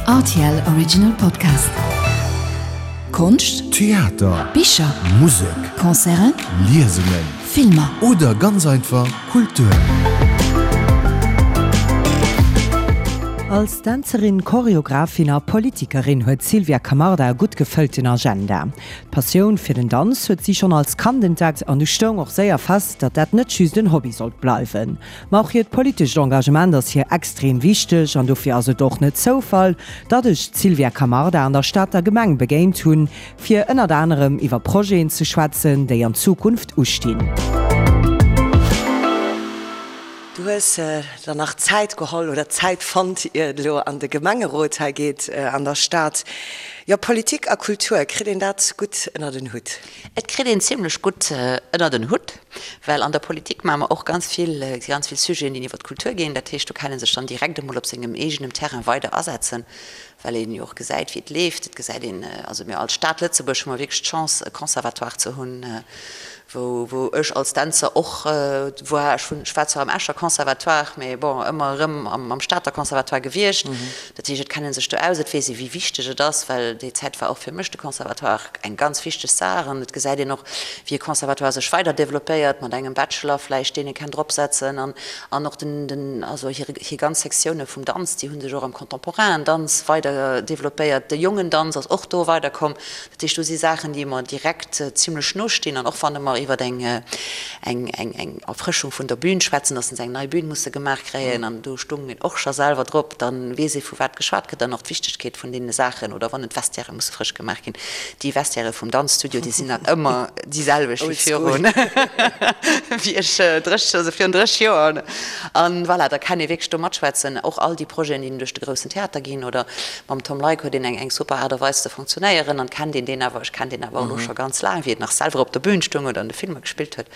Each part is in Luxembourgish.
Rtl Original Podcast. Konscht, Theater, Bicher, Musek, Concerten, Liesungen Filmer. Oder ganz einfach Kultur. Als Dänzerin, Choreografin a Politikerin huet d'Sylvia Camarda e gutt gefëllten Agenda. D'Passioun fir den Danz huet si schonn als Kand entdeckt an du stoung och séier fest, datt dat net just en Hobby sollt bleiwen. Ma och hiert politescht Engagement ass hir extrem wichteg an dofir ass et och net Zoufall, datt ech d'Sylvia Camarda an der Stater Gemeng begéint hunn, fir ënnert anerem iwwer Projeten ze schwätzen, déi an Zukunft ustinn. Du hues der nach Zäit geholl oder Zäit fonnt, ier et elo an de Gemengerot hei geet an der Stad. Jo, Politik a Kultur, kritt een dat gutt ënnert en Hutt? Et kritt een zimlech gutt ënnert en Hutt, well an der Politik maache mer och ganz vill, ganz vill Sujeten, déi iwwer d'Kultur ginn. Dat heescht, do kann ee sech dann direkt emol op sengem eegenem Terrain weider asetzen, well een jo och gesäit, wéi et leeft. Et gesäit een, also mir als Stad Lëtzebuerg hu mer wierklech d'Chance, e Conservatoire ze hunn, wou, wou ech als Dänzer och war. Ech hunn, ech war zwar am Escher Conservatoire, mee bon, ëmmer erëm am Stater Conservatoire gewiescht. Dat heescht, et kennt ee sech do aus, et weess ee wéi wichteg et ass, well déi Zäit war och fir mech de Conservatoire eng ganz wichteg Saach an et gesäit een och, wéi e Conservatoire sech weider developpéiert mat engem Bachelor vläicht, deen ee kennt dropsetzen an an och den, den, also hir, hir ganz Sektioune vum Danz, déi hu sech och am contemporainen Danz weider developpéiert. De jongen Danz ass och do weiderkomm. Dat heescht, do si Saachen, déi mer direkt zimlech no stinn. An och wann mer iwwer eng, eng, eng, eng Erfrëschung vun der Bühn schwätzen, dass se eng nei Bühn musse gemaach kréien, an do stung een och scho selwer drop, da weess ee vu wat geschwat gëtt an och d'Wichtegkeet vun deene Saachen. Oder wann d'Vestiairë musse frësch gemaach ginn. Déi Vestiairë vum Danzstudio, déi sinn nach ëmmer déi selwecht wéi virun, wéi ech 30, also virun 30 Joer. An voilà, da kann ee wierklech do matschwätzen. Och all déi Projeten, déi duerch de groussen Theater ginn oder Mam Tom Leick huet een eng eng super Aart a Weis ze funktionéieren an kennt een deen awer, ech kenn deen awer och elo scho ganz laang, wéi et nach selwer op der Bühn stoung oder an de Filmer gespillt huet.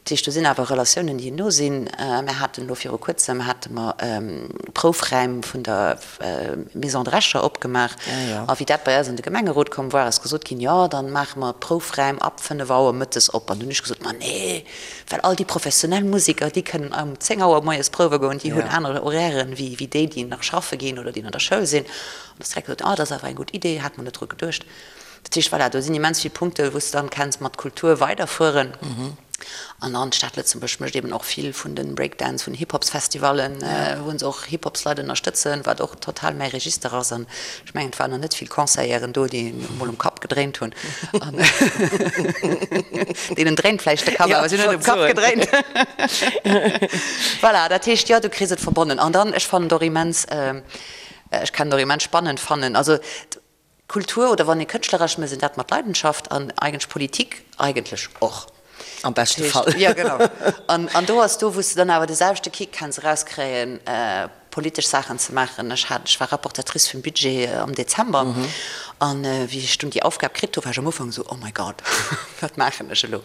Dat heescht, do sinn awer Relatiounen, déi no sinn. Mir haten elo viru kuerzem hate mer Proufräim vun der Maison Drescher opgemaach a wéi dat bei eis an de Gemengerot komm war, ass gesot ginn, jo dann maache mer d'Proufräim ab 5 Auer mëttes op. An dunn hunn ech gesot, ma nee, Well all déi professionell Museker, déi kënnen um 10 Auer moies prouwe goen, déi hunn aner Horairen wéi wéi déi, déi nach schaffe ginn oder déi an der Schoul sinn. An da ass direkt gesot, ah, dat ass awer eng gutt Idee, hat mer net dru geduecht. Dat heescht, voilà, do sinn immens vill Punkte wou s de dann kenns mat Kultur weiderfueren. An dann d'Stad Lëtzebuerg mécht eben och vill vun de Breakdance, vun Hip-Hops-Festivallen, wou se och Hip-Hops-Leit ënnerstëtzen, wat och total mäi Register ass. An Ech mengen, et waren nach net vill Conseilleren do, déi emol um Kapp gedréint hunn. An deenen dréint vläicht de Kapp, awer si hunn net um Kapp gedréint. Voilà, dat heescht, jo, du kriss et verbonnen. An dann, ech fannen et och immens, ech kann et och immens spannend fannen, also Kultur oder wann ee kënschtleresch mécht, dat mat Leidenschaft an eigentlech Politik eigentlech och. Am beschte Fall. Jo, genau. An, an do ass do, wou s de dann awer de selwechte Kick kenns erauskréien, politesch Saachen ze maachen. Ech hat, ech war Rapportatrice vum Budget am Dezember. An wéi ech dunn déi Aufgab kritt hu, war ech am Ufank esou, Oh my God, wat maachen ech elo?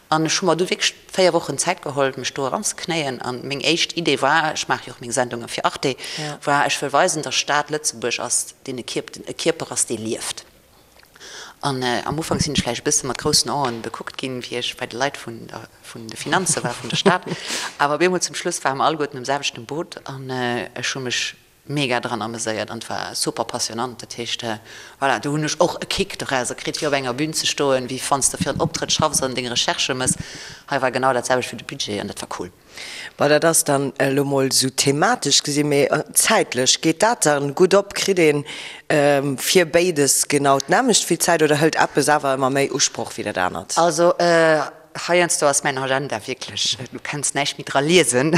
An ech hu mer du wierklech 4 Wochen Zäit geholl, mech do eranzeknéien. An meng éischt Idee war, ech maache jo och meng Sendunge fir Arte, war, ech wëll weisen, datt Stad Lëtzebuerg ass, deen e Kierp, e Kierper ass, dee lieft. An am Ufank sinn ech vläicht e bësse mat groussen Aen bekuckt ginn, wéi ech bei de Leit vun der, vun de Finanze war, vun der Stad. Awer op eemol zum Schluss ware mer alleguerten um selwechten Boot an ech hu mech mega dran ameséiert an et war super passionant. Dat heescht, voilà, do hunn ech och e Kick dorauser kritt, fir op enger Bühn ze stoen, wéi wann s de fir en Optrëtt schaffs an deng Recherchë mëss. Hei war genau dat selwecht fir de Budget an dat war cool. Bon, dat ass dann elo mol esou thematesch gesinn, mee zäitlech, geet dat dann gutt op? Kritt een fir béides genau d'nämmlecht vill Zäit oder hëlt eppes awer ëmmer méi Usproch wéi dat anert? Also heiansdo ass mäin Agenda wierklech, du kenns näischt méi dra liesen,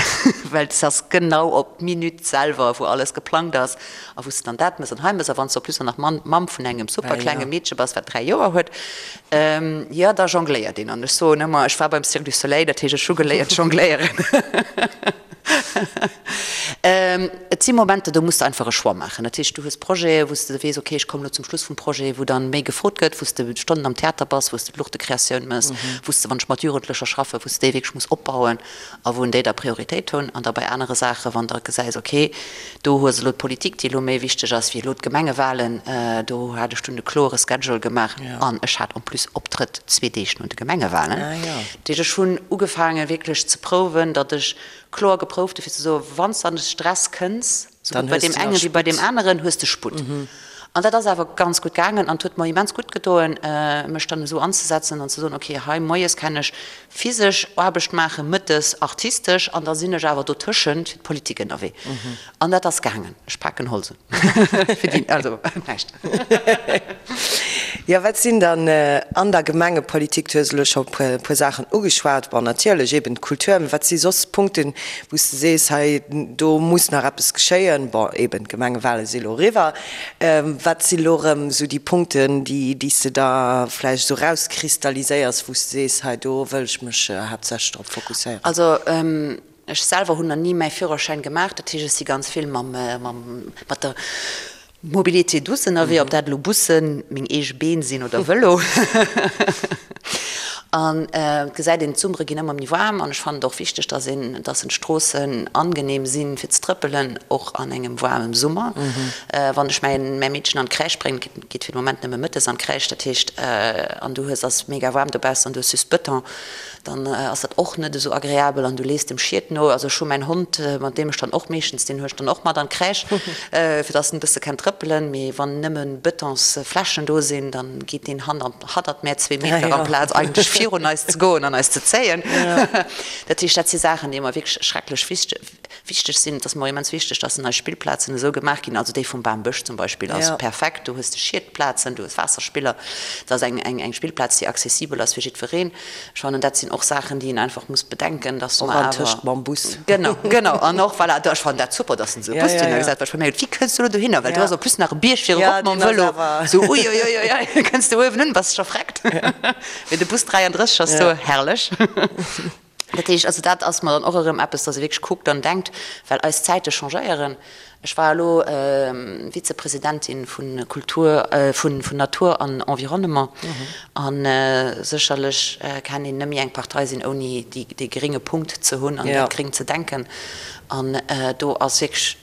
well s ass genau op d'Minutt selwer, wou alles geplangt ass a wou s de dann dat mëss an hei mëss. A wann s de en plus och nach Mamm vun engem super klenge Meedche bass, wat 3 Joer huet, Jo, da jongléiert een. An ech soen ëmmer, ech war beim Cirque du Soleil, dat heescht, ech hu geléiert jongléieren. Et si Momenter, do muss de einfach e Choix maachen. Dat heescht, du hues Projete, wou s de weess, okay, ech kommen elo zum Schluss vum Projet, wou dann méi gefrot gëtt, wou s de Stonnen am Theater bass, wou s de d'Luuchtekreatioun mëss, wou s de, wann ech mat Jugendlecher schaffen, wou s de déi wierklech muss opbauen. A wou en déi da Prioritéit hunn. An da bei anere Saachen, wann der gesäis, okay, do hues elo d'Politik, déi elo méi wichteg ass wéi elo d'Gemengewahlen, do hat ech dunn e kloere Schedule gemaach an ech hat en plus Optrëtt zwee Deeg no de Gemengewahlen. Dat heescht, ech hunn ugefaange wierklech ze prouwen, datt ech kloer geprouft hu fir ze soen, wann s de an de Stress kënns. Sou gutt bei deem engen wéi bei deem aneren hues de Sputt. An dat ass awer ganz gutt gaangen an et huet mer immens gutt gedoen, mech dann esou anzesetzen an ze soen, okay, hei moies kann ech physesch Aarbecht maachen, mëttes artistesch an da sinn ech awer dotëschent fir d'Politik ënnerwee. An dat ass gaangen. Ech paken Holz un. Fir déi, also näischt. Jo, wat sinn dann an der Gemengepolitik, du hues elo scho e puer Saachen ugeschwat, bon natierlech eben d'Kultur, mä wat si soss Punkten, wou s de sees, hei do muss nach eppes geschéien? Bon, eben d'Gemengewale si elo eriwwer. Wat si elo erëm esou déi Punkten, déi déi s de da vläicht esou erauskristalliséiers, wou s de sees, hei do wëll ech mech haaptsächlech drop fokusséieren? Also Ech selwer hunn nach ni mäi Führerschäin gemaach, dat heescht ech si ganz vill mam, mam, mat der Mobilité douce ënnerwee, ob dat elo Bussen, meng eege Been sinn oder Vëlo. An et gesäit een, d'Summere ginn ëmmer méi waarm an ech fannen et och wichteg, dass een, dass en d'Stroossen angenehm sinn fir ze trëppelen, och an engem waarmem Summer. Wann ech mäin, mäi Meedchen an d'Crèche bréngen, geet fir de Moment nëmme mëttes an d'Crèche, dat heescht, an du hues, ass mega waarm dobaussen an du hues just Bëton, dann ass dat och net esou agreabel an du lees dem Schiet no. Also ech hu mäin Hond, mat deem ech dann och meeschtens, deen hu ech dann och mat an d'Crèche, fir dass en e bësse kennt trëppelen. Mee wann nëmme Betonsflächen do sinn, dann geet deen hannert mär zwee Meter amplaz eigentlech virun eis ze goen an eis ze zéien. Dat heescht, dat si Saachen, déi mer wierklech schrecklech wichteg sinn. Et ass mer och immens wichteg, dass nei Spillplazen esou gemaach ginn, also déi vum Bambësch zum Beispill ass perfekt, do hues de Schietplazen, du hues Waasserspiller, et ass eng Spillplaz, déi accessibel ass fir jiddwereen. Ech fannen, dat sinn och Saachen, déi een einfach muss bedenken, dass mer awer. Och antëscht mam Bus. Genau, genau. An och, voilà, ech fannen dat super, dass en esou e Bus dohinner gesat huet. Ech hu mir geduecht, wéi kënns du elo dohinner? Well do ass en plus nach e Bierg fir erop mam Vëlo. Sou, uiuiuiui, kënns du uewen un, bass scho vreckt. Mee de Bus 33 ass do, herrlech. Dat heescht, also dat ass mer dann och erëm eppes, dass ee wierklech kuckt an denkt, well eis Zäite changéieren. Ech war elo Vizepresidentin vu Kultur, vun Natur an Environnement a sécherlech kann een net méi eng Partei sinn, ouni dee grénge Punkt ze hunn an dat Gréng ze denken. An do ass wierklech,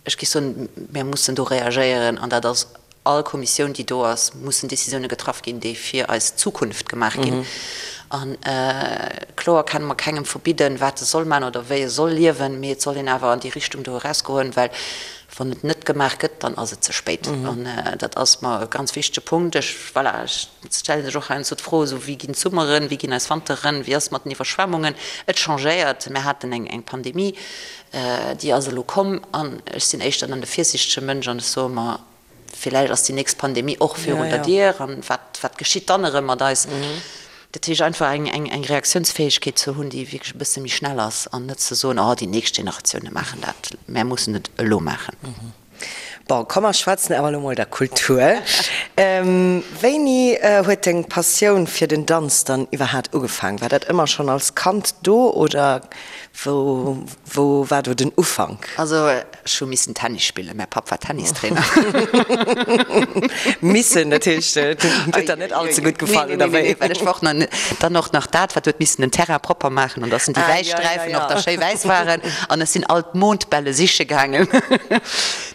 ech géif soen, mir mussen do reagéieren an dat ass all Kommissioun, déi do ass, mussen Décisioune getraff ginn, déi fir eis Zukunft gemaach ginn. A kloer kenne mer kengem verbidden, wat e soll maachen oder wéi e soll liewen, mee et soll een awer an déi Richtung do erausgoen, well wann et net gemaach gëtt, dann ass et ze spéit. An dat ass mer e ganz wichtege Punkt. Ech, voilà, ech stelle sech och heiansdo d'Fro, esou, wéi ginn d'Summeren, wéi ginn eis Wanteren, wéi ass et mat den Iwwerschwemmungen? Et changéiert. Mir haten eng Pandemie, Déi ass elo komm an ech sinn éischter dann de virsiichtege Mënsch an ech soe mer, villäicht ass déi nächst Pandemie och virun der Dier an wat, wat geschitt dann erëm mat eis? Dat heescht einfach eng, eng, eng Reaktiounsfäegkeet ze hunn, déi wierklech e bësse méi schnell ass an net ze soen, oh déi nächst Generatioune maachen dat, mär mussen et elo maachen. Bon, komm mer schwätzen awer elo mol der Kultur. Wéini huet deng Passioun fir den Danz dann iwwerhaat ugefaang? War dat ëmmer schonn als Kand do oder wou wou war do den Ufank? Also ech hu missen Tennis spillen, mäi Papp war Tennistrainer. Missen, dat heescht et huet der net all ze gutt gefall oder wéi? Nee, well ech war och nach dann och nach dat wat huet missen den Terrain propper maachen an dass en déi wäiss Sträifen och da schéi wäiss waren an ech sinn all d'Mondbälle siche gaangen.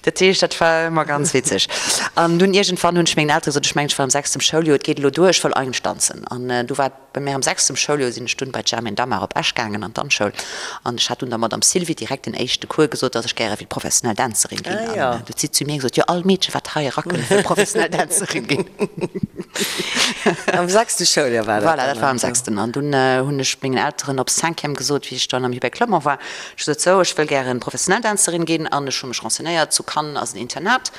Dat heescht, dat war ëmmer ganz witzeg. An dunn iergendwann hunn ech mengen Eltere gesot, ech mengen ech war am sechstem Schouljoer, et geet elo duer, ech wëll eigentlech danzen. An du war et bei mär am sechstem Schouljoer, sinn ech dunn bei d'Germaine Damar op Esch gaangen an d'Danzschoul. An ech hat dunn der Madame Sylvie direkt den éischte Cours gesot, dass ech gäre wéilt professionell Dänzerin ginn. An du huet si zu mir gesot, jo all Meedche wat hei erakënnt wëll professionell Dänzerin ginn. Am sechste Schouljoer war dat dann? Voilà, dat war am sechsten. An dunn hunn ech mengen Elteren op Cinquième gesot, wéi ech dann am Hubert Clement war, Ech sot sou, ech wëll gären professionell Dänzerin ginn an ech hu mech renseignéiert, zu Cannes ass en Internat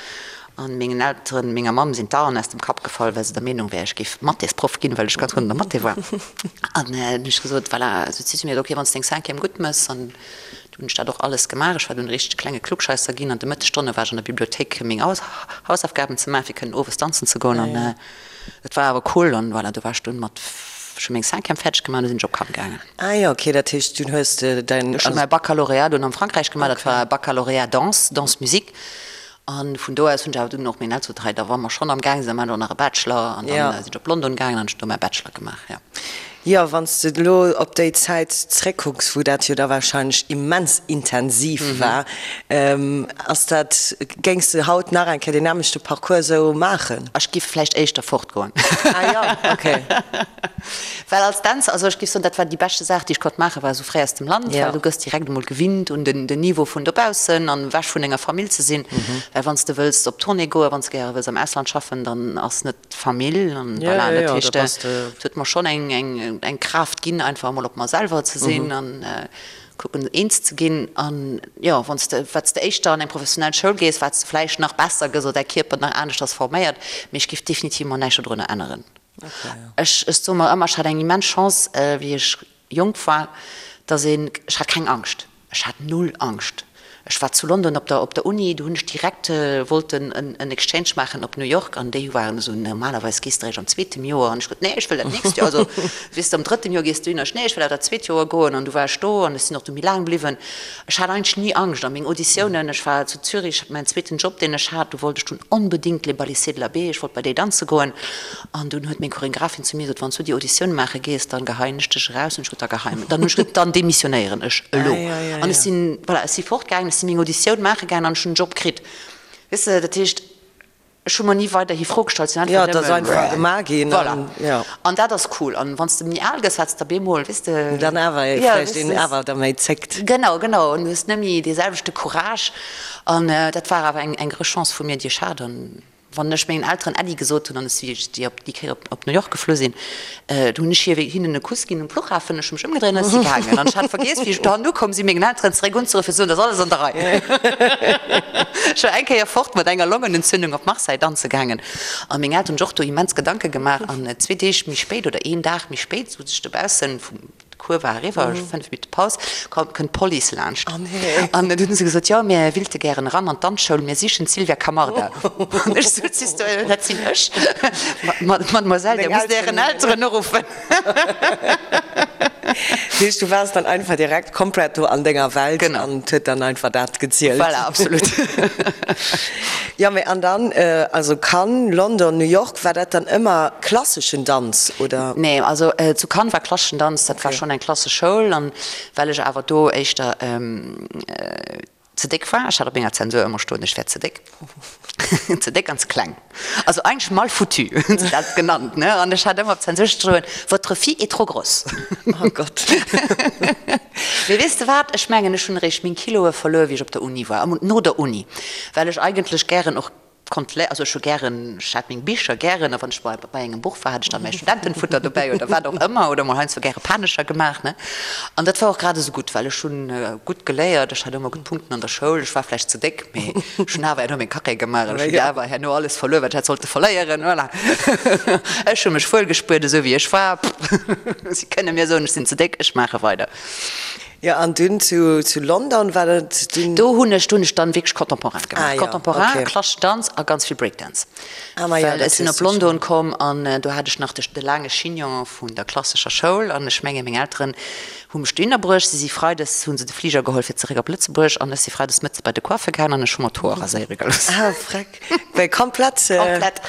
an mengen Elteren, menger Mamm sinn d'Aen aus dem Kapp gefall, well se der Meenung wär, ech géif Mathésproff ginn, well ech ganz gutt an der Mathé war. An dunn hunn ech gesot, voilà, sot si zu mir, ok, wann s de deng Cinquième gutt mëss, an du hunn ech dat och alles gemaach, ech war dunn e richtege klenge Klugscheisser ginn, an de Mëttesstonne war ech an der Bibliothéik fir meng Hausaufgaben ze maachen, fir kënnen owes danzen ze goen an et war awer cool an voilà, du war ech dunn mat, ech hu meng Cinquième fäerdeg gemaach an du sinn ech op Cannes gaangen. Ah jo, ok, dat heescht dunn hues de däin. Ech hu mäi Baccalauréat dunn am Frankräich gemaach, dat war Baccalauréat Danse, Danse Musique. An vun do aus hunn ech awer dunn och meng Elteren gesot, hei da wa mer schonn am gaang sinn, da maachen ech och nach e Bachelor. An dann sinn ech op London gaangen an ech hunn do mäi Bachelor gemaach, jo. Jo, wann s de elo op déi Zäit zréckkucks, wou dat jo da warscheinlech immens intensiv war, ass dat, géings de haut nach eng Kéier deen nämmlechte Parcours esou maachen? Ech giff vläicht éischter fortgoen. Ah jo, okay. Well als Dänzer, also ech giff soen, dat war déi beschte Saach, déi ech konnt maachen, war esou fréi aus dem Land, well du gëss direkt emol gewinnt un den Niveau vun dobaussen an ewech vun denger Famill ze sinn. Well wann s de wëlls op Tournée goen, wann s de gäre wëlls am Ausland schaffen, dann ass net Famill an voilà, dat heescht et huet mer schonn eng eng eng Kraaft ginn einfach emol op mer selwer ze sinn an kucken eens ze ginn an jo wann s de wat s de éischter an eng professionell Schoul gees, wat s de vläicht nach besser gëss oder däi Kierper nach aneschters forméiert, mee ech géif definitiv mer näischt dodrunner änneren. Ech ech soe mer ëmmer, ech hat eng immens Chance wéi ech jonk war, dass een, ech hat keng Angscht, ech hat null Angscht. Ech war zu London op der op der Uni, do hunn ech direkt wollten en en Exchange maachen op New York an déi waren esou, normalerweis gees de eréischt am zweetem Joer an ech gesot, nee ech wëll dat nächst Joer, also weess de am drëtten Joer gees du hin, ech nee ech wëll awer dat zweet Joer goen an du war ech do an ech sinn och du méi laang bliwwen. Ech hat eigentlech ni Angscht a meng Auditiounen, ech war zu Zürich, mäin zweeten Job deen ech hat, do wollt ech dunn onbedéngt Les Balissiers de la Baie, ech wollt bei déi danze goen An dunn huet meng Choreographin zu mir gesot, Wann s du déi Auditioun maache gees, dann geheien ech dech eraus. Hunn ech gesot, Da geheim. Dann hunn ech gesot, Dann demissionéieren ech elo. An ech sinn, voilà, ech si fortgaangen, ech si meng Auditioun maache gaangen an ech hunn en Job kritt. Weess de, dat heescht, ech hu mer ni weiderhi Fro gestallt, sinn einfach nëmmen. Jo, et ass einfach gemaach ginn. Voilà. An dat ass cool. An wann s de méi al gëss, wat s de op eemol, weess de. Dann awer vläicht een awer da méi zéckt. Genau, genau. An du hues net méi dee selwechte Courage. An dat war awer eng grouss Chance vu mir, déi ech hat. An. Wann ech mengen Elteren Äddi gesot hunn an ech si déi op déi Kéier op New York geflu sinn, du hunn ech hir hinnen e Kuss ginn um Fluchhafen, ech hu mech ëmgedréint an ech si gaangen. An ech hat vergiess, wéi ech dohannen ukomm sinn, mengen Elteren zeréck unzeruffen fir ze soen, et ass alles an der Rei. Ech war eng Kéier fort mat enger Longenentzündung op Marseille danze gaangen a meng Elteren hunn sech och do immens Gedanke gemaach. An zwee Deeg méi spéit oder een Dag méi spéit sot ech dobaussen vum D'Cours war eriwwer, 5 Minutte Paus, kënnt d'Police laanscht. An dunn hu se gesot, jo, mir willte gären eran an d'Danzschoul, mir sichen d'Sylvia Camarda. An ech sot, Siehst du, dat sinn ech. Mademoiselle, Dir musst Ären Elteren uruffen. Dat heescht, du waars dann einfach direkt komplett do an denger Welt an et huet dann einfach dat gezielt. Voilà, absolut. Jo, mee an dann, also Cannes, London, New York, war dat dann ëmmer klasseschen Danz, oder? Nee, also zu Cannes war klasseschen Danz, dat war schonn eng klassesch Schoul. An well ech awer do éischter ze déck war, ech hat op menger Zensur ëmmer stoen, ech wär ze déck, ze déck an ze kleng, also eigentlech mal foutu hunn se dat genannt, ne? An ech hat ëmmer op Zensur stoen, Votre fille est trop grosse. Oh Gott. Mee weess de wat, ech mengen, ech hunn eréischt meng Kiloe verluer, wéi ech op der Uni war, no der Uni, well ech eigentlech gären och konnt lé, also ech hu gären, ech hat meng Bicher gären, a wann ech bei bei engem Buch war, hat ech dann mäi Studentenfutter dobäi oder wat och ëmmer, oder mol heiansdo gäre Panescher gemaach, ne. An dat war och grad esou gutt, well ech hunn gutt geléiert, ech hat ëmmer gutt Punkten an der Schoul, ech war vläicht ze déck, mee ech hunn awer herno meng Carrière gemaach an ech hunn awer herno alles verluer, wat ech hätt sollte verléieren, voilà. Ech hu mech wuel gespuert, esou wéi ech war, si kënne mir soen, ech sinn ze déck, ech maache weider. Jo, an dunn zu zu London war dat dunn? Do hunn ech, do hunn ech dann wierklech Contemporain gemaach. Ah jo, Contemporain, okay. Klasseschen Danz a ganz vill Breakdance. Ah ma jo, Well dat ech sinn hues op du schonn. London komm an do hat ech nach de de laange Chignon vun der klassescher Schoul an ech menge meng Elteren hu mech dohinner bruecht. Si si freides, hu se de Fliger geholl fir zeréck op Lëtzebuerg an ech si freides mëttes bei de Coiffer gaangen an ech hu mer d'Hoer raséiere gelooss. Ah freck, wéi komplett? Komplett.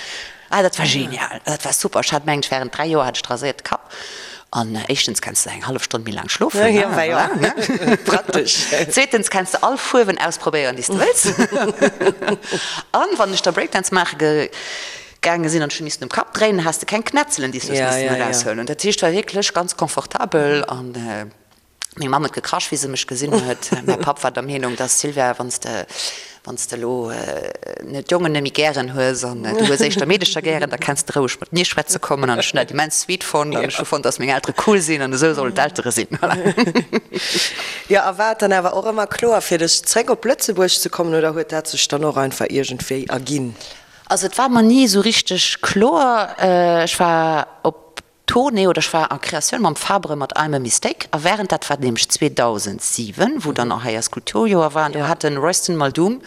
Ah, dat war genial, dat war super. Ech hat mengt ech während 3 Joer hat ech de raséierte Kapp an éischtens kenns de eng hallef Stonn méi laang schlofen, Ja, ja, ja, ne? Praktesch. Zweetens kenns de all Fuerwen ausprobéieren déi s de wëlls. An wann ech da Breakdance maache ge gaange sinn an ech hu missen um Kapp dréinen, has de keng Knätzelen déi s du hues Ja, missen ja, ja. eraushuelen. Dat heescht war wierklech ganz confortabel an Meng Mamm huet gekrasch, wéi se mech gesinn huet. Mäi Papp war der Meenung, dass, Sylvia, wann s de, wann s de elo net d'Jongen net méi gären hues an du hues éischter Meedecher gären, da kenns de roueg mat mir schwätze kommen. An ech hunn dat immens sweet fonnt an ech hu fonnt, dass meng Eltere cool sinn an esou sollen d'Eltere sinn. Voilà. Jo, a war et dann awer och ëmmer kloer fir dech, zréck op Lëtzebuerg ze kommen oder huet dat sech dann och einfach iergendwéi erginn? Also et war mer ni esou richteg kloer. Ech war op Tournée oder ech war en Créatioun mam Fabre mat I'm a Mistake a während, dat war nämlech 2007, wou dann och hei eist Kulturjoer war an do hat de Royston Maldoom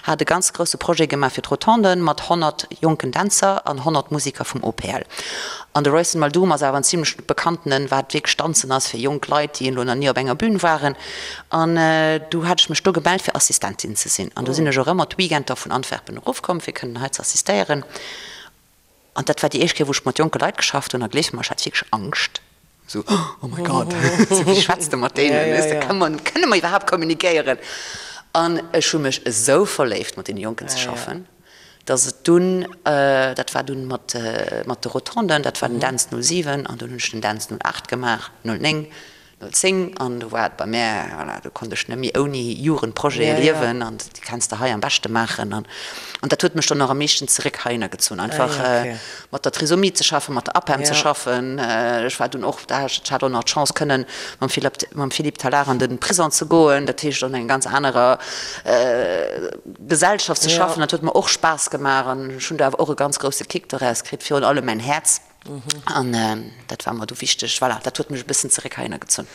hat e ganz grousse Projet gemaach fir d'Rotonden mat 100 jonken Dänzer an 100 Musiker vum OPL. An de Royston Maldoom ass awer en zimlech bekanntenen, wat wierklech Danzen ass fir jonk Leit, déi elo nach ni op enger Bühn waren. An du hat ech mech do gemellt fir Assistentin ze sinn an do sinn ech och ëmmer d'Weekender vun Antwerpen erofkomm fir kënnen hei ze assistéieren. An dat war déi éischt Kéier, wou ech mat jonke Leit geschafft hunn. A gleef mer, ech hat wierklech Angscht. Sou, oh my God, sou, wéi schwätz de mat deenen, weess de, kënne mer, kënne mer iwwerhaapt kommunikéieren? An ech hu mech esou verléift, mat deene Jonken ze schaffen, dass et dunn, dat war dunn mat, mat de Rotonden, dat war den Dänz 07, an dunn hunn ech den Dänz 08 gemaach, 09, 10 an do war et bei mär, voilà, do konnt ech net méi ouni Jugendprojete liewen an déi kenns de hei am beschte maachen an an dat huet mech dann och am meeschten zeréck heihinner gezunn, einfach mat der Trisomie ze schaffen, mat der APEM ze schaffen. Ech war dunn och, da ech hat och nach d'Chance kënnen mam Philippe, mam Philippe Tallard an de Prison ze goen, dat heescht an enger ganz anerer Gesellschaft ze schaffen, dat huet mer och Spaass gemaach an ech hunn do awer och e ganz grousse Kick doraus kritt, virun allem mäin Häerz. An dat war mer du wichteg. Voilà, dat huet mech e bëssen zeréck heihinner gezunn.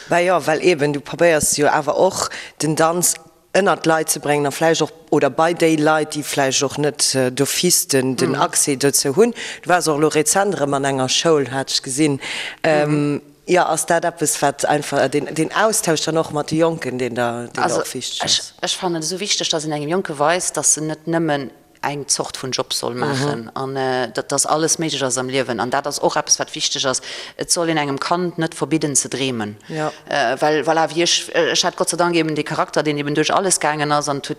Bah jo, well eben, du probéiers jo awer och den Danz ënnert d'Leit ze bréngen a vläicht och, oder bei déi Leit, déi vläicht och net d'office den, den Accès dozou hunn. Du waars och elo rezent erëm an enger Schoul, hat ech gesinn. Jo, ass dat eppes, wat einfach, deen, deen Austausch dann och mat de Jonken, deen der, deen der och wichteg ass? Also ech fannen et esou wichteg, dass een engem Jonke weist, dass en net nëmmen eng Zort vun Job soll maachen an dass alles méiglech ass am Liewen. An dat ass och eppes, wat wichteg ass, Et soll een engem Kand net verbidden ze dreemen. Well voilà, wéi ech, ech hat Gott sei Dank eben dee Charakter, deen eben duerch alles gaangen ass an et huet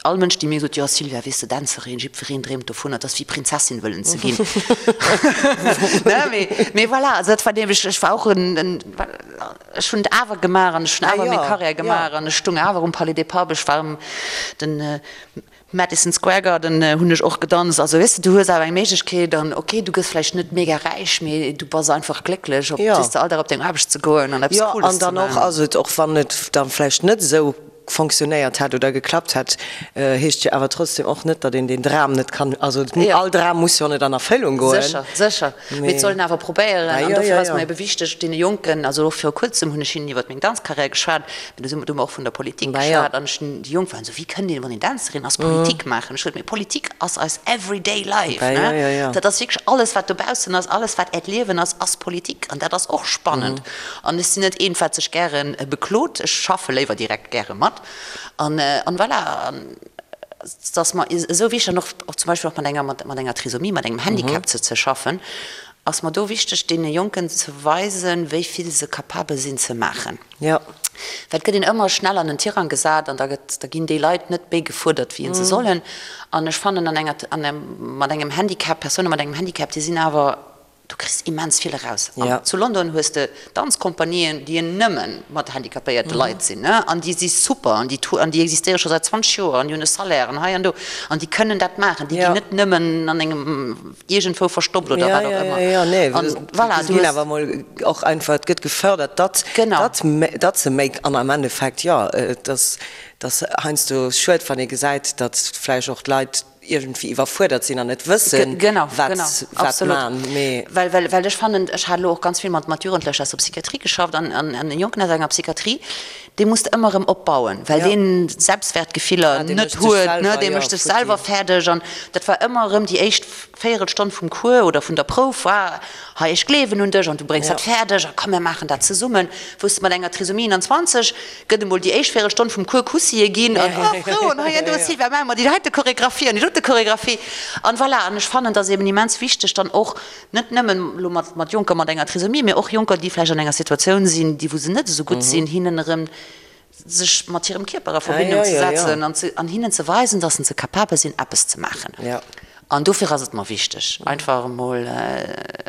all Mënsch, dee mir gesot, jo Sylvia, weess de, Dänzerin, jiddwereen dreemt dovunner, et ass wéi Prinzessin wëllen ze ginn. Ne, mee voilà, also dat war nämlech, ech war och en, ech hunn et awer gemaach an ech hunn awer meng Karriär gemaach an ech stung awer um Palais des Papes, ech war um den Madison Square Garden hunn ech och gedanzt. Also weess de, du hues awer eng Méiglechkeet an ok, du gëss vläicht net mega räich, mee du bass einfach glécklech op weess de all Dag op deng Aarbecht ze goen an eppes Cooles ze maachen. Jo, an dann och ass et, och wann et dann vläicht net esou fonctionnéiert hätt oder geklappt hätt, heescht jo awer trotzdem och net, datt een deen Dram net kann, also all Dram muss jo net an Erfëllung goen. Sécher, sécher, mee et soll een awer probéieren an dofir ass mer ebe wichteg deene Jonken, also och viru kuerzem hunn ech hinnen iwwert meng Danzcarrière geschwat, Mee do si mer, do hu mer och vun der Politik geschwat an ech hunn, déi Jonk waren esou, wéi kënnt een, wann een Dänzerin ass, Politik maachen? Ech sot, mee Politik ass eis everyday life, ne? Dat ass wierklech alles, wat dobaussen ass, alles, wat äert Liewen ass, ass Politik an dat ass och spannend. An ech sinn net eent, wat sech gäre beklot, ech schaffe léiwer direkt gäre mat an, an voilà. An et ass mer esou wichteg an och, och zum Beispill och mat enger, mat enger Trisomie, mat engem Handicap ze, ze schaffen, ass mer do wichteg, deene Jonken ze weisen, wéi vill se capabel sinn ze maachen. Jo. Well et gëtt een ëmmer schnell an en Tirang gesat an da gëtt, da ginn déi Leit net méi gefuerdert wéi se sollen. An ech fannen an enger, an engem, mat engem Handicap, Persoune mat engem Handicap, déi sinn awer, du kriss immens vill eraus. An zu London hues de Danzkompanien, déi nëmme mat handicapéierte Leit sinn, ne, an déi si super an déi, an déi existéiere scho säit 20 Joer an déi hunn e Salaire an hei an do an déi kënnen dat maachen. Déi ginn net nëmmen an engem iergendwou verstoppt oder wat och ëmmer. Jo, jo, nee, An voilà, du ginn awer mol och einfach, et gëtt gefördert, datt, datt, datt se méi, an am Endeffekt, jo, et ass, et ass heiansdo schued, wann ee gesäit, datt vläicht och d'Leit iergendwéi iwwerfuerdert sinn an net wëssen, wat, wat man, mee. Well, well, well ech fannen, ech hat elo och ganz vill mat, mat Jugendlecher aus der Psychiatrie geschafft an, an, an e Jonken aus enger Psychiatrie, dee muss de ëmmer erëm opbauen, well deen Selbstwertgefiller net huet, ne, dee mécht sech selwer fäerdeg an dat war ëmmer erëm déi éischt Véierelstonn vum Cours oder vun der Prouf war, hei ech gleewen un dech an du bréngs dat fäerdeg a komm mir maachen dat zesummen. Wou s de mat enger Trisomie 21 gëtt emol déi éischt Véierelstonn vum Cours Kussië ginn an oh frou an hei an do Sylvia maache mer déi heite Choregraphie an déi dote Choregraphie an voilà. An ech fannen, et ass eben immens wichteg dann och net nëmmen elo mat mat Jonker mat enger Trisomie, mee och Jonker déi vläicht an enger Situatioun sinn, déi wou se net esou gutt sinn, hinnen erëm sech mat hirem Kierper a Verbindung ze setzen an ze an hinnen ze weisen, dass se capabel sinn eppes ze maachen. An dofir ass et mer wichteg einfach emol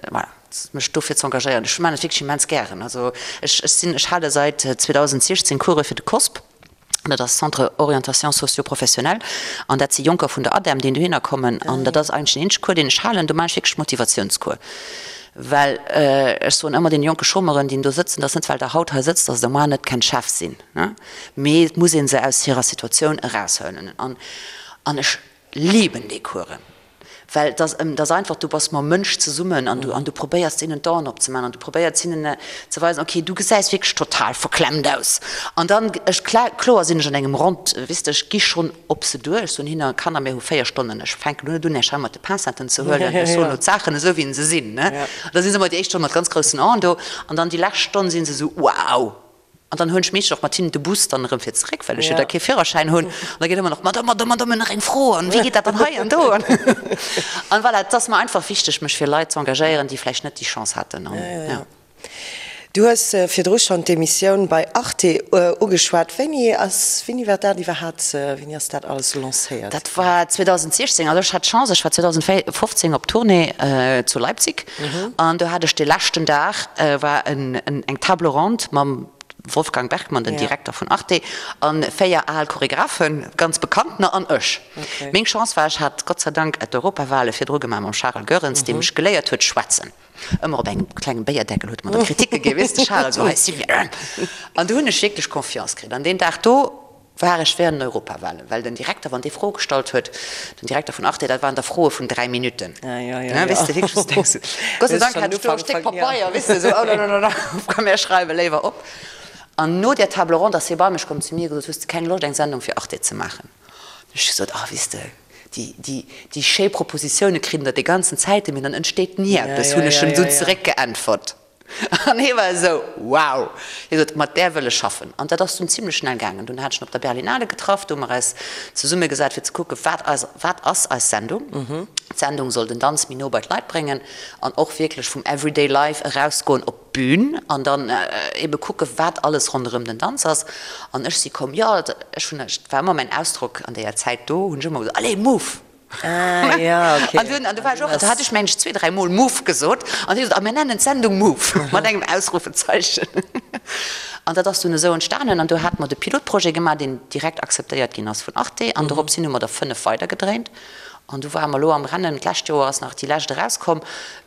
voilà mech dofir ze engagéieren. Ech maachen et wierklech immens gären. Also ech ech sinn ech hale säit 2016 Course fir de COSP, dat ass Centre Orientation Socio-Professionnelle an dat si Jonker vun der ADEM déi dohinner kommen an dat ass eigentlech den eenzege Cours deen ech halen. Do maachen ech wierklech Motivatiounscours. Well ech soen ëmmer deene jonke Chômeuren, déi do sëtzen, dass net well Der haut hei sëtzt, dass Der moar net kennt Chef sinn, mee et muss ee se aus hirer Situatioun eraushuelen. An ech liben déi Coursen, well et ass, et ass einfach, du bass mam Mënsch zesummen an du, an du probéiers deenen d'Aen opzemaachen an du probéiers hinnen ze weisen, okay, du gesäis wierklech total verklemmt aus. An dann, ech, kloer sinn ech an engem Rond, weess de, ech gi schonn op se duer. Ech soen hinne, Kanner, mir hu 4 Stonnen, ech fänken elo net un, Iech hei mat de Pincetten ze huelen, ech soen elo d'Saachen esou, wéi se sinn. An da si se ëmmer déi éischt Stonn mat ganz groussen Aen do an dann déi lescht Stonn si se esou, Wow! An dann huelen ech meeschtens och mat hinnen de Bus dann erëm fir zeréck, well ech jo da kee Führerschäin hunn. An da geet ëmmer nach, Madame, Madame, Madame, nach eng Fro, an wéi geet dat dann hei an do? An voilà, et ass mer einfach wichteg, mech fir Leit z'engagéieren, déi vläicht net déi Chance haten. An, jo. Du hues virdru schonn d'Emissioun bei Arte ugeschwat. Wéini ass, wéini war dat iwwerhaapt, wéini ass dat alles lancéiert Dat war 2016. Also ech hat d'Chance, ech war 2015 op Tournée zu Leipzig an do hat ech de leschten Dag war eng Table ronde mam Wolfgang Bergmann, den Direkter vun Arte, a 4 al Choregraphen, ganz bekanntener, an ech. Meng Chance war, ech hat Gott sei Dank d'Europawale virdru gemaach mam Charel Goerens, dee mech geléiert huet schwätzen. Ëmmer op engem klengem Béierdeckel huet e mer da Kriticke ginn, weess de Charel, sou hei Sylvia. An do hunn ech wierklech Confiance kritt. An deen Dag do war ech während den Europawahlen, well den Direkter, wann dee Froe gestallt huet, den Direkter vun Arte, dat waren da Froe vun 3 Minutten, weess de, wierklech, wou s de denks, Gott sei Dank hat ech do e Stéck Papeier, weess de, sou, oh la la la, komm mir schreiwe léiwer op. An no där Table ronde ass hie bei mech komm zu mir gesot, hues de keng Loscht eng Sendung fir Arte ze maachen? Hunn ech gesot, ah, weess de, déi, déi, déi schéi Propositioune kritt der déi ganzen Zäiten, mee dann entsteet ni eppes, hunn ech em du zeréckgeäntwert. An hie war esou, Wow! Hie sot, Mat där wëll ech schaffen. An dat ass dunn zimlech schnell gaangen. Dunn hat ech en op der Berlinale getraff, do hu mer eis zesummegesat fir ze kucken, wat eis, wat ass eis Sendung? D'Sendung soll den Danz méi no bei d'Leit bréngen an och wierklech vum everyday life erausgoen op d'Bün an dann ebe kucken, wat alles ronderëm den Danz ass. An ech si komm, jo, ech hunn, et war ëmmer mäin Ausdrock an deeër Zäit do, hunn ech ëmmer gesot, Allez, move! Ah, ja, okay. An dunn, an du war ech och, do hat ech mengen ech zwee, dräi Mol move gesot an hie sot, a mir nennen d'Sendung Move, mat engem Ausrufezeichen. An dat ass dunn esou entstanen an do hate mer de Pilotprojet gemaach, deen direkt akzeptéiert ginn ass vun Arte an dorops hin hu mer der 5 weidergedréint. An du ware mer elo am Rennen, d'lescht Joer ass nach déi lescht erauskomm.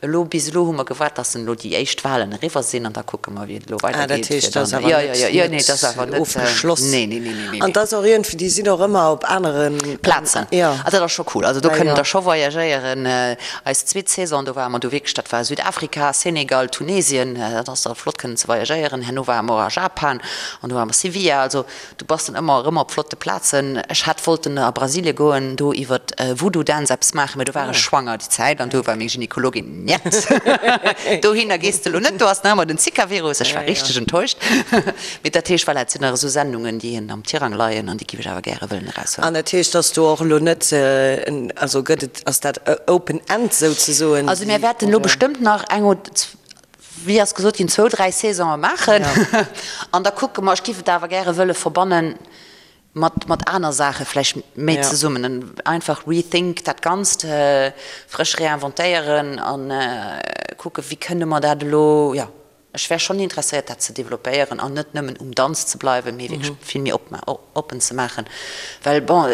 Elo, bis elo hu mer gewaart, dass elo déi éischt Wahlen eriwwer sinn an da kucke mer, wéi et elo Ah, dat weidergeet. heescht, Fir dat ass dann, awer jo, jo, net, jo, jo, nee, dat ass awer net net, ofgeschloss. nee, nee, nee, nee, nee, An nee. dat ass och iergendwéi, déi sinn och ëmmer op anere Plazen. Jo. Ah, dat ass scho cool. Also do Ja, kënnen jo. der scho voyagéieren. Eis zweet Saison, do ware mer du wierklech, dat war Südafrika, Senegal, Tunesien, dat ass da flott kënnen ze voyagéieren. Herno ware mer och a Japan an do ware mer Sevilla. Also Du bass dann ëmmer erëm op flotte Plazen. Ech hätt wollten a Brasilie goen, do iwwer Voodoo Dance eppes maachen, mee do war ech schwanger déi Zäit an do war meng Gynekologin, Njet, dohinner gees de elo net, do ass nach ëmmer den Zika-Virus. Ech war richteg enttäuscht. Mee dat heescht, voilà, et sinn nach esou Sendungen, déi een am Tirang leien an déi giff ech awer gäre wëllen eraushuelen. An dat heescht, dass do och elo net, also gëtt et, ass dat open end souzesoen? Also mir wäerten elo bestëmmt nach eng oder wéi ass gesot ginn, zwou, dräi Saisonen maachen an da kucke mer. Ech géif et awer gäre wëlle verbanne mat, mat aner Saache vläicht méi zesummen. Einfach rethink dat Ganzt, frësch réinventéieren a kucke wéi kënne mer dat elo, jo, ech wär schonn interesséiert dat ze developpéieren an net nëmmen um Danz ze bleiwen, mee wierklech vill méi oppen ze maachen, well bon,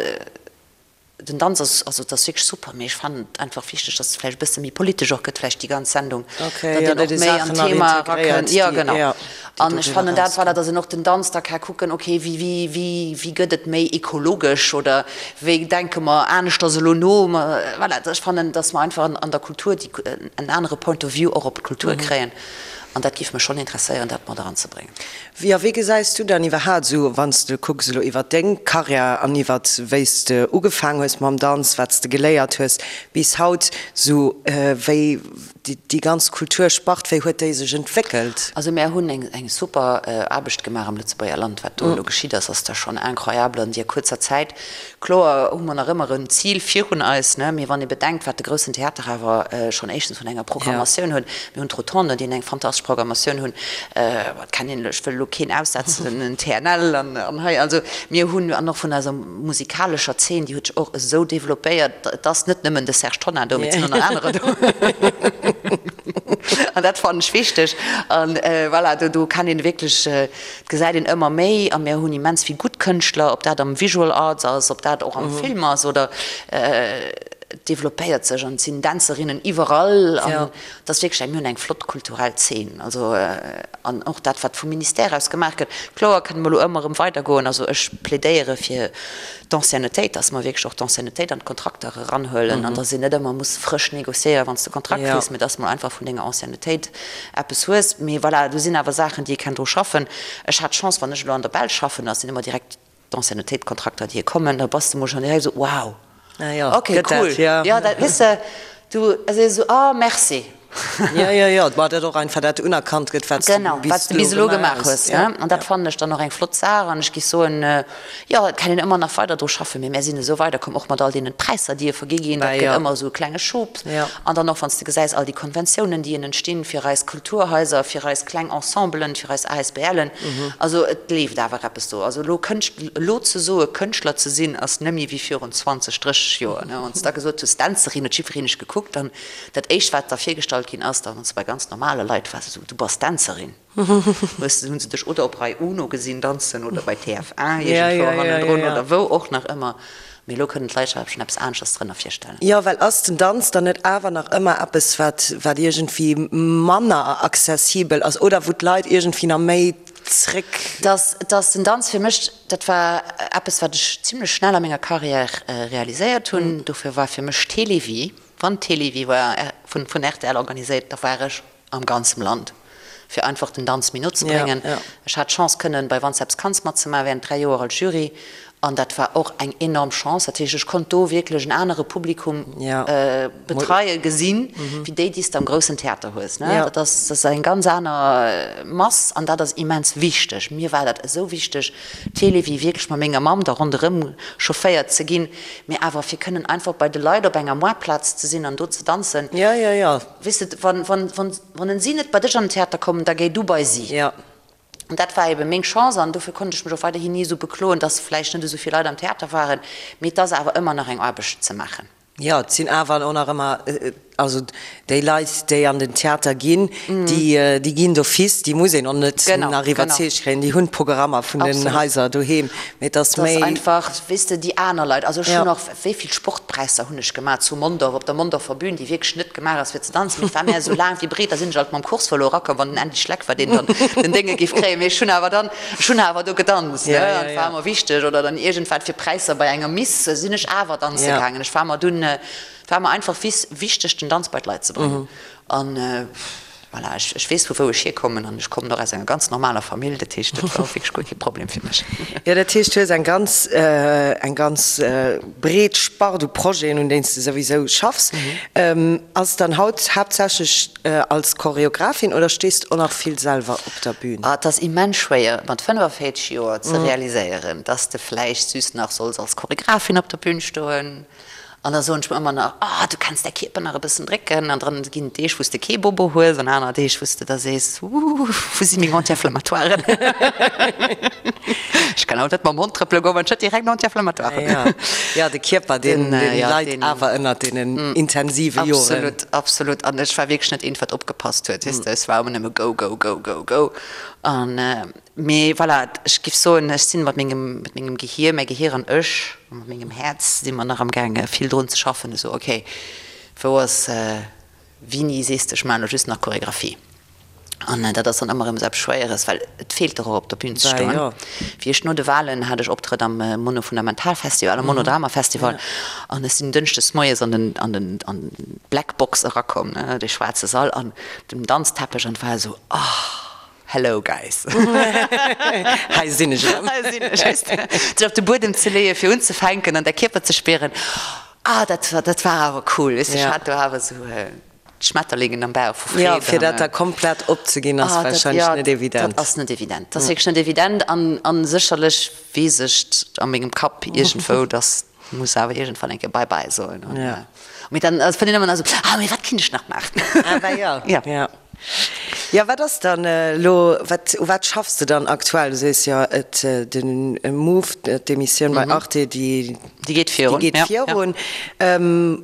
Den Danz ass, also et ass wierklech super, mee ech fannen et einfach wichteg, dass et vläicht e bësse méi politesch och gëtt, vläicht déi ganz Sendung, Okay, datt jo, een datt och ee méi an Saachen nach d'Thema integréiert, erakënnt. Jo, déi, genau. jo, déi An ech doriwwer fannen dat, voilà, erausginn. datt een och den Danz da ka kucken, okay, wéi, wéi, wéi, wéi gëtt et méi ekologesch oder wéi denke mer aneschters elo no? Voilà, ech fannen, datt mer einfach an der Kultur déi, en anere Point of view och op d'Kultur kréien an dat géif mech schonn interesséieren, dat mat eranzebréngen. Jo, wéi gesäis du dann iwwerhaat esou, wann s de kucks elo iwwert deng Karriär an iwwert wéi s de ugefaang hues mam Danz, wat s de geléiert hues bis haut, esou wéi déi ganz Kulturspart, wéi huet déi sech entwéckelt? Also mär hunn eng super Aarbecht gemaach am Lëtzebuerger Land. Wat do elo geschitt ass, ass da schonn incroyable an deer kuerzer Zäit. Kloer hu mer nach ëmmer en Zil virun eis, ne, mee wann ee bedenkt, wat de Groussen Theater awer schonn éischtens vun enger Programmatioun huet, mir hunn d'Rotonde, déi eng fantastesch Programmatioun hunn, wat kann een, ech wëll elo keen aussetzen, den TNL an hei, also mir hunn, an och vun eiser musikalescher Zeen, déi huet sech och esou developpéiert, et ass net nëmmen de Serge Tonnar do, mee et sinn och nach anerer do. An dat fannen ech wichteg. An voilà, do kann een wierklech, Et gesäit een ëmmer méi, a mir hunn immens vill gutt Kënschtler, ob dat am Visual Arts ass, ob dat och am Film ass oder et developpéiert sech an et sinn Dänzerinnen iwwerall an et ass wierklech eng, mir hunn eng flott kulturell Zeen. Also an och dat wat vum Ministère aus gemaach gëtt, kloer kënne mer elo ëmmer erëm weidergoen. Also ech plädéiere fir d'Anciennetéit, dass mer wierklech och d'Anciennetéit an d'Kontrakter eranhuelen an dass een net ëmmer muss frësch négociéieren, wann s de Kontrakt kriss, mä dass mer einfach vun denger Anciennetéit eppes hues. Mee voilà, do sinn awer Saachen, déi ee kann dru schaffen. Ech hat d'Chance, wann ech elo an der Belsch schaffen, da sinn ëmmer direkt d'Anciennetéitkontrakter, déi kommen, da bass de mol schonn direkt esou, wow, Ah jo, okay, gëtt cool, dat, jo. Jo, dat, weess de, du sees esou, ah, merci. Jo, jo, jo, ma dat och einfach dat unerkannt gëtt, wat s du Genau, wat s du bis elo gemaach hues, ne? An dat fannen ech dann och eng flott Saach an ech géif soen, jo, et kann een ëmmer nach weider dru schaffen, mee mär sinn esou weiderkomm, och mat all deenen Präisser, déi e vergi ginn, dat gëtt ëmmer esou e klenge Schub. An dann och, wann s de gesäis, all déi Konventiounen, déi en entstinn fir eis Kulturhaiser, fir eis kleng Ensemblen, fir eis ASBLen, also et leeft awer eppes do. Also elo Kënscht, elo ze soe Kënschtler ze sinn, ass nëmme wéi virun 20, 30 Joer, ne? Wann s de da gesot hues Dänzerin, huet jiddwereen dech gekuckt an Dat éischt wat da virgestallt ginn ass, da wann s de bei ganz normale Leit waars, esou, du bass Dänzerin, hues de, hunn se dech oder op Rai Uno gesinn danzen oder bei TF1 iergendwou hannendrun oder wou och nach ëmmer. Mee elo kënnen d'Leit sech awer schonn eppes aneschters drënner virstellen. Jo, well ass den Danz dann net awer nach ëmmer eppes wat, wat iergendwéi manner accessibel ass oder wou d'Leit iergendwéi nach méi zréck. Dass, dass den Danz fir mech, dat war eppes wat ech zimlech schnell a menger Carrière realiséiert hunn, dofir war fir mech Télévie, Wann d'Télévie war vun rtl organiséiert, da war ech am ganzem Land, fir einfach den Danz méi no ze bréngen. Ech hat d'Chance kënnen bei Wann s eppes kanns matzemaachen während 3 Joer als Jury an dat war och eng enorm Chance. Dat heescht, ech konnt do wierklech en anere Publikum betreien, gesinn, wéi déi, déi s de am groussen Theater hues. Dat ass eng ganz aner Mass an dat ass immens wichteg. Mir war dat esou wichteg, d'Télévie wierklech mat menger Mamm da ronderëm chaufféiert ze ginn. Mee awer fir kënnen einfach bei de Leit op enger Moartplaz ze sinn an do ze danzen. Jo, jo, jo. Weess de, wann, wann, wann, wann en si net bei dech an den Theater kommen, da géi du bei si. Jo. An dat war ebe meng Chance an dofir konnt ech mech och weiderhin ni esou bekloen, dass vläicht net esou vill Leit am Theater waren. Mee et ass awer ëmmer nach eng Aarbecht ze maachen. Jo, et sinn awer och nach ëmmer, also déi Leit, déi an den Theater ginn, déi, déi ginn d'office, déi muss een och net nach iwwerzeegt kréien, déi hunn d'Programmer vun den Haiser doheem. Mee et ass méi. Et ass einfach, weess de, déi aner Leit, also ech hunn och, wéi vill Sportpräisser hunn ech gemaach zu Mondorf, op der Mondorfer Bühn, déi wierklech net gemaach ass fir ze danzen, mee et war mär esou laang wéi breet, da sinn ech alt mam Course-Vëlo erakomm, wann den Andy Schleck war, deen dann den Dénge géif kréien, mee ech hunn awer dann, Ech hunn awer do gedanzt, ne, an et war mer wichteg. Oder dann iergendwat fir Präisser bei enger Miss sinn ech awer danze gaangen. Ech war mer dunn, et war mer einfach wichteg, den Danz bei d'Leit ze bréngen. An voilà, ech, ech weess vu wou ech hierkommen an ech kommen och aus enger ganz normaler Famill, dat heescht, dat war och wierklech guer kee Problem fir mech. Jo, dat heescht, du hues eng ganz, eng ganz breet Spart u Projeten, un deenen s de souwisou schaffs. Ass dann haut haaptsächlech Als Choreographin oder stees de och nach vill selwer op der Bühn? Et ass immens schwéier mat 45 Joer ze realiséieren, dass de vläicht süss nach solls als Choreographin op der Bühn stoen. An da soen ech mer ëmmer nach, oh du kenns däi Kierper nach e bëssen drécken. An dann ginn et Deeg wou s de kee Bobo hues an aner Deeg wou s de da sees, ooh wou si meng Anti-inflammatoiren? Ech kann haut net mam Hond trëppele goen, wann ech net direkt en Anti-inflammatoire hunn. Jo, de Kierper deen leit awer ënnert deenen intensive Joren. Absolut, absolut. An ech war wierklech net eent, wat opgepasst huet, weess de. Ech war ëmmer nëmme go, go, go, go, go. An, mee voilà, ech giff soen, ech sinn mat mengem, mat mengem Gehier, mäi Gehier an ech, a mat mengem Häerz si mer nach amgaange vill drun ze schaffen, esou, okay, wou ass, wéini sees de, ech maachen elo just nach Choregraphie? An dat ass dann ëmmer erëm esou eppes Schwéieres, well et feelt der och op der Bühn ze stoen. Wéi ech no de Wahlen hat ech Optrëtt am Mono-Fundamental-Festival, am Monodrama-Festival, an ech sinn dënschdes moies an den, an den, an d'Black Box erakomm, ne, dee schwaarze Sall an dem Danzteppech, an et war esou, oh, hello guys. Hei sinn ech erëm. Hei sinn ech, weess de. Sech op de Buedem ze leeën, fir unzefänken an däi Kierper ze spieren, ah, dat war, dat war awer cool, weess de. Ech hat do awer esou. Schmetterlingen am Bauch vu Freed. Jo, fir dat da komplett opzeginn ass warscheinlech net evident. Dat ass net evident. Dat ass wierklech net evident an sécherlech weess ech a mengem Kapp iergendwou, dass muss awer iergendwann eng Kéier Bye bye soen. Mee dann fënnt een ëmmer nach esou, ah mee wat kinnt ech nach maachen? Ah bah jo. Jo. Jo, wat ass dann elo, wat, u wat schaffs de dann aktuell? Du sees jo, et den Move, d'Emissioun bei Arte, déi Déi geet virun. Déi geet virun.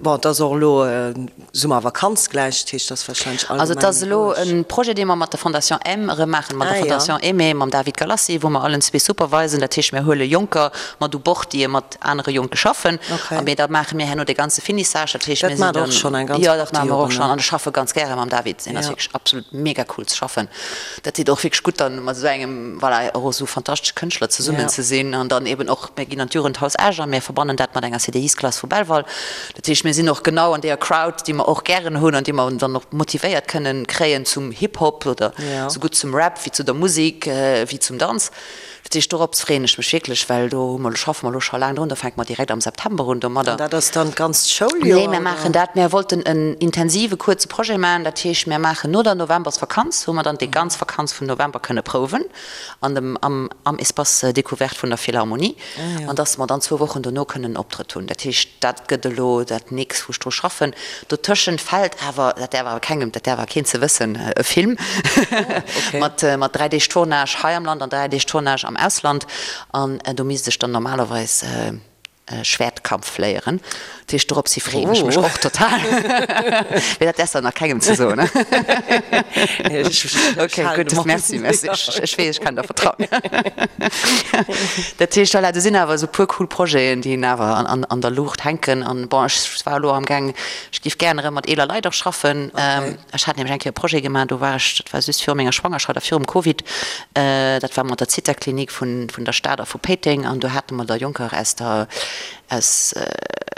Bon, et ass och elo Summervakanz gläich, dat heescht, et ass warscheinlech allgemeng Also et ass elo roueg. e Projet, dee mer mat der Fondation M erëm maachen, mat der Fondation Aimée, mam David Galassi, wou mer allen zwee supervisen. Dat heescht, mir huele Jonker mat u Bord, déi mat anere Jonke schaffen. A mee da maache mir herno dee ganze Finissage. Dat heescht, Dat mir sinn maacht och dann, schonn eng ganz jo, dat Partie maache mer och Joren, schonn. ne? An ech schaffe ganz gäre mam David. Deen ass wierklech absolut mega cool ze schaffen. Dat deet och wierklech gutt, dann mat esou engem, voilà, och esou fantastesche Kënschtler zesummen ze sinn. An dann eben och, mir ginn an d'Jugendhaus Esch a mir verbannen dat mat enger CDIs-Klass vu Belval. Dat heescht, mir sinn och genau an deeër Crowd, déi mer och gären hunn an déi mer dann och motivéiert kënnen kréien zum Hip-Hop oder sougutt zum Rap wéi zu der Musek wéi zum Danz. Dat heescht, dorops freeën ech mech wierklech, well do hu mer, schaffe mer elo scho laang drun. Do fänke mer direkt am September un domadder. An dat ass dann d'ganzt Schouljoer? Nee, mir maachen dat, mir wollten en intensive kuerze Projet maachen. Dat heescht, mir maachen no der Novembersvakanz, wou mer dann déi ganz Vakanz vum November kënne prouwen an dem, am, am Espace découverte vun der Philharmonie. An dass mer dann zwou Wochen dono kënnen en Optrëtt hunn. Dat heescht, dat gëtt elo dat nächst, wou ech dru schaffen. Dotëschent fält awer, dat däerf awer kengem, dat däerf awer keen ze wëssen, e Film mat, mat 3 Deeg Tournage hei am Land an 3 Deeg Tournage am Ausland. An do misst ech dann normalerweis Schwertkampf léieren. Dat heescht, dorops hi freeën ech mech och total. Mee dat däerfs de nach kengem ze soen. Ok, gutt, merci, merci. Ech weess, ech kann der vertrauen. Dat heescht, voilà, do sinn awer esou e puer cool Projeten, déi awer an der Luucht hänken. An bon, ech war elo amgaang, ech géif gären erëm mat eeler Leit och schaffen. Ech hat nämlech eng Kéier e Projet gemaach, do war ech, dat war just viru menger Schwangerschaft a virum Covid, dat war mat der Zithaklinik vun der Stad a vu Péiteng. An do hate mer da Jonker aus der, aus,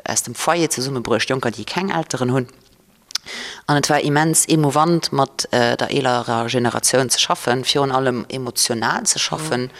aus dem Foyer zesummebruecht, Jonker, déi keng Elteren hunn. An et war immens emouvant, mat der eelerer Generatioun ze schaffen, virun allem emotional ze schaffen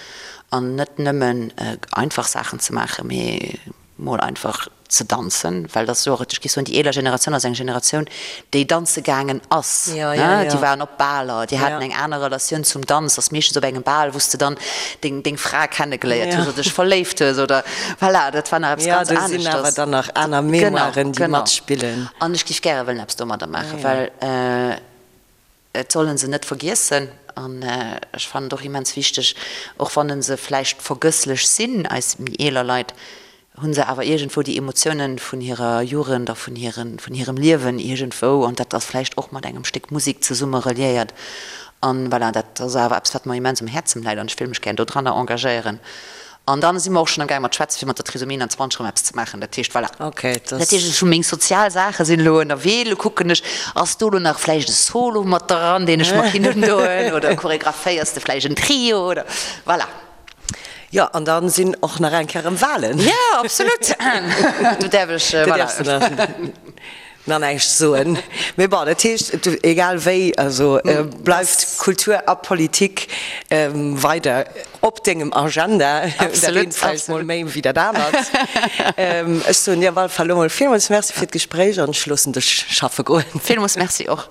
an net nëmmen einfach Saachen ze maachen, mee mol einfach ze danzen, well dat ass jo och, ech géif soen, déi eeler Generatioun ass eng Generatioun, déi danze gaangen ass, déi waren op Baler, déi haten eng aner Relatioun zum Danz, ass meeschtens op engem Bal, wou s de dann deng, deng Fra kennegeléiert hues oder dech verléift hues oder voilà, dat war nach eppes ganz aneschters. Jo, do sinn awer dann nach aner Mémoiren, déi matspillen. An ech géif gäre wëllen eppes domadder maachen, well et soll en se net vergiessen. An ech fannen et och immens wichteg, och wann en se vläicht vergësslech sinn, eis méi eeler Leit, hu se awer iergendwou déi Emotiounen vun hirer Jugend a vun hiren, vun hirem Liewen iergendwou. An dat ass vläicht och mat engem Stéck Musek zesumme reliéiert. An voilà, dat ass awer eppes, wat mer immens um Häerzem läit an ech wéll mech gär dodranner engagéieren. An dann si mer och schonn am gaang mat schwätzen, fir mat der Trisomie 21 erëm eppes ze maachen. Dat heescht, voilà. Dat heescht, ech hu meng sozial Saache sinn elo ënnerwee. Elo kucken ech, ass do elo nach vläicht e Solo mat dran, deen ech mer kinnt undoen oder choreographéiers de vläicht en Trio oder voilà. Jo, an da sinn och nach eng Kéier erëm Wahlen. Jo, absolut. Do däerf ech, voilà. Do däerfs de nach näischt soen. Mee bon, dat heescht, egal wéi, also bleift Kultur a Politik weider op dengem Agenda. Dat eent vläicht mol méi wéi dat anert. Ech soen dir op alle Fall elo mol villmools Merci fir d'Gespréich an ech loossen dech schaffe goen. Villmools Merci och.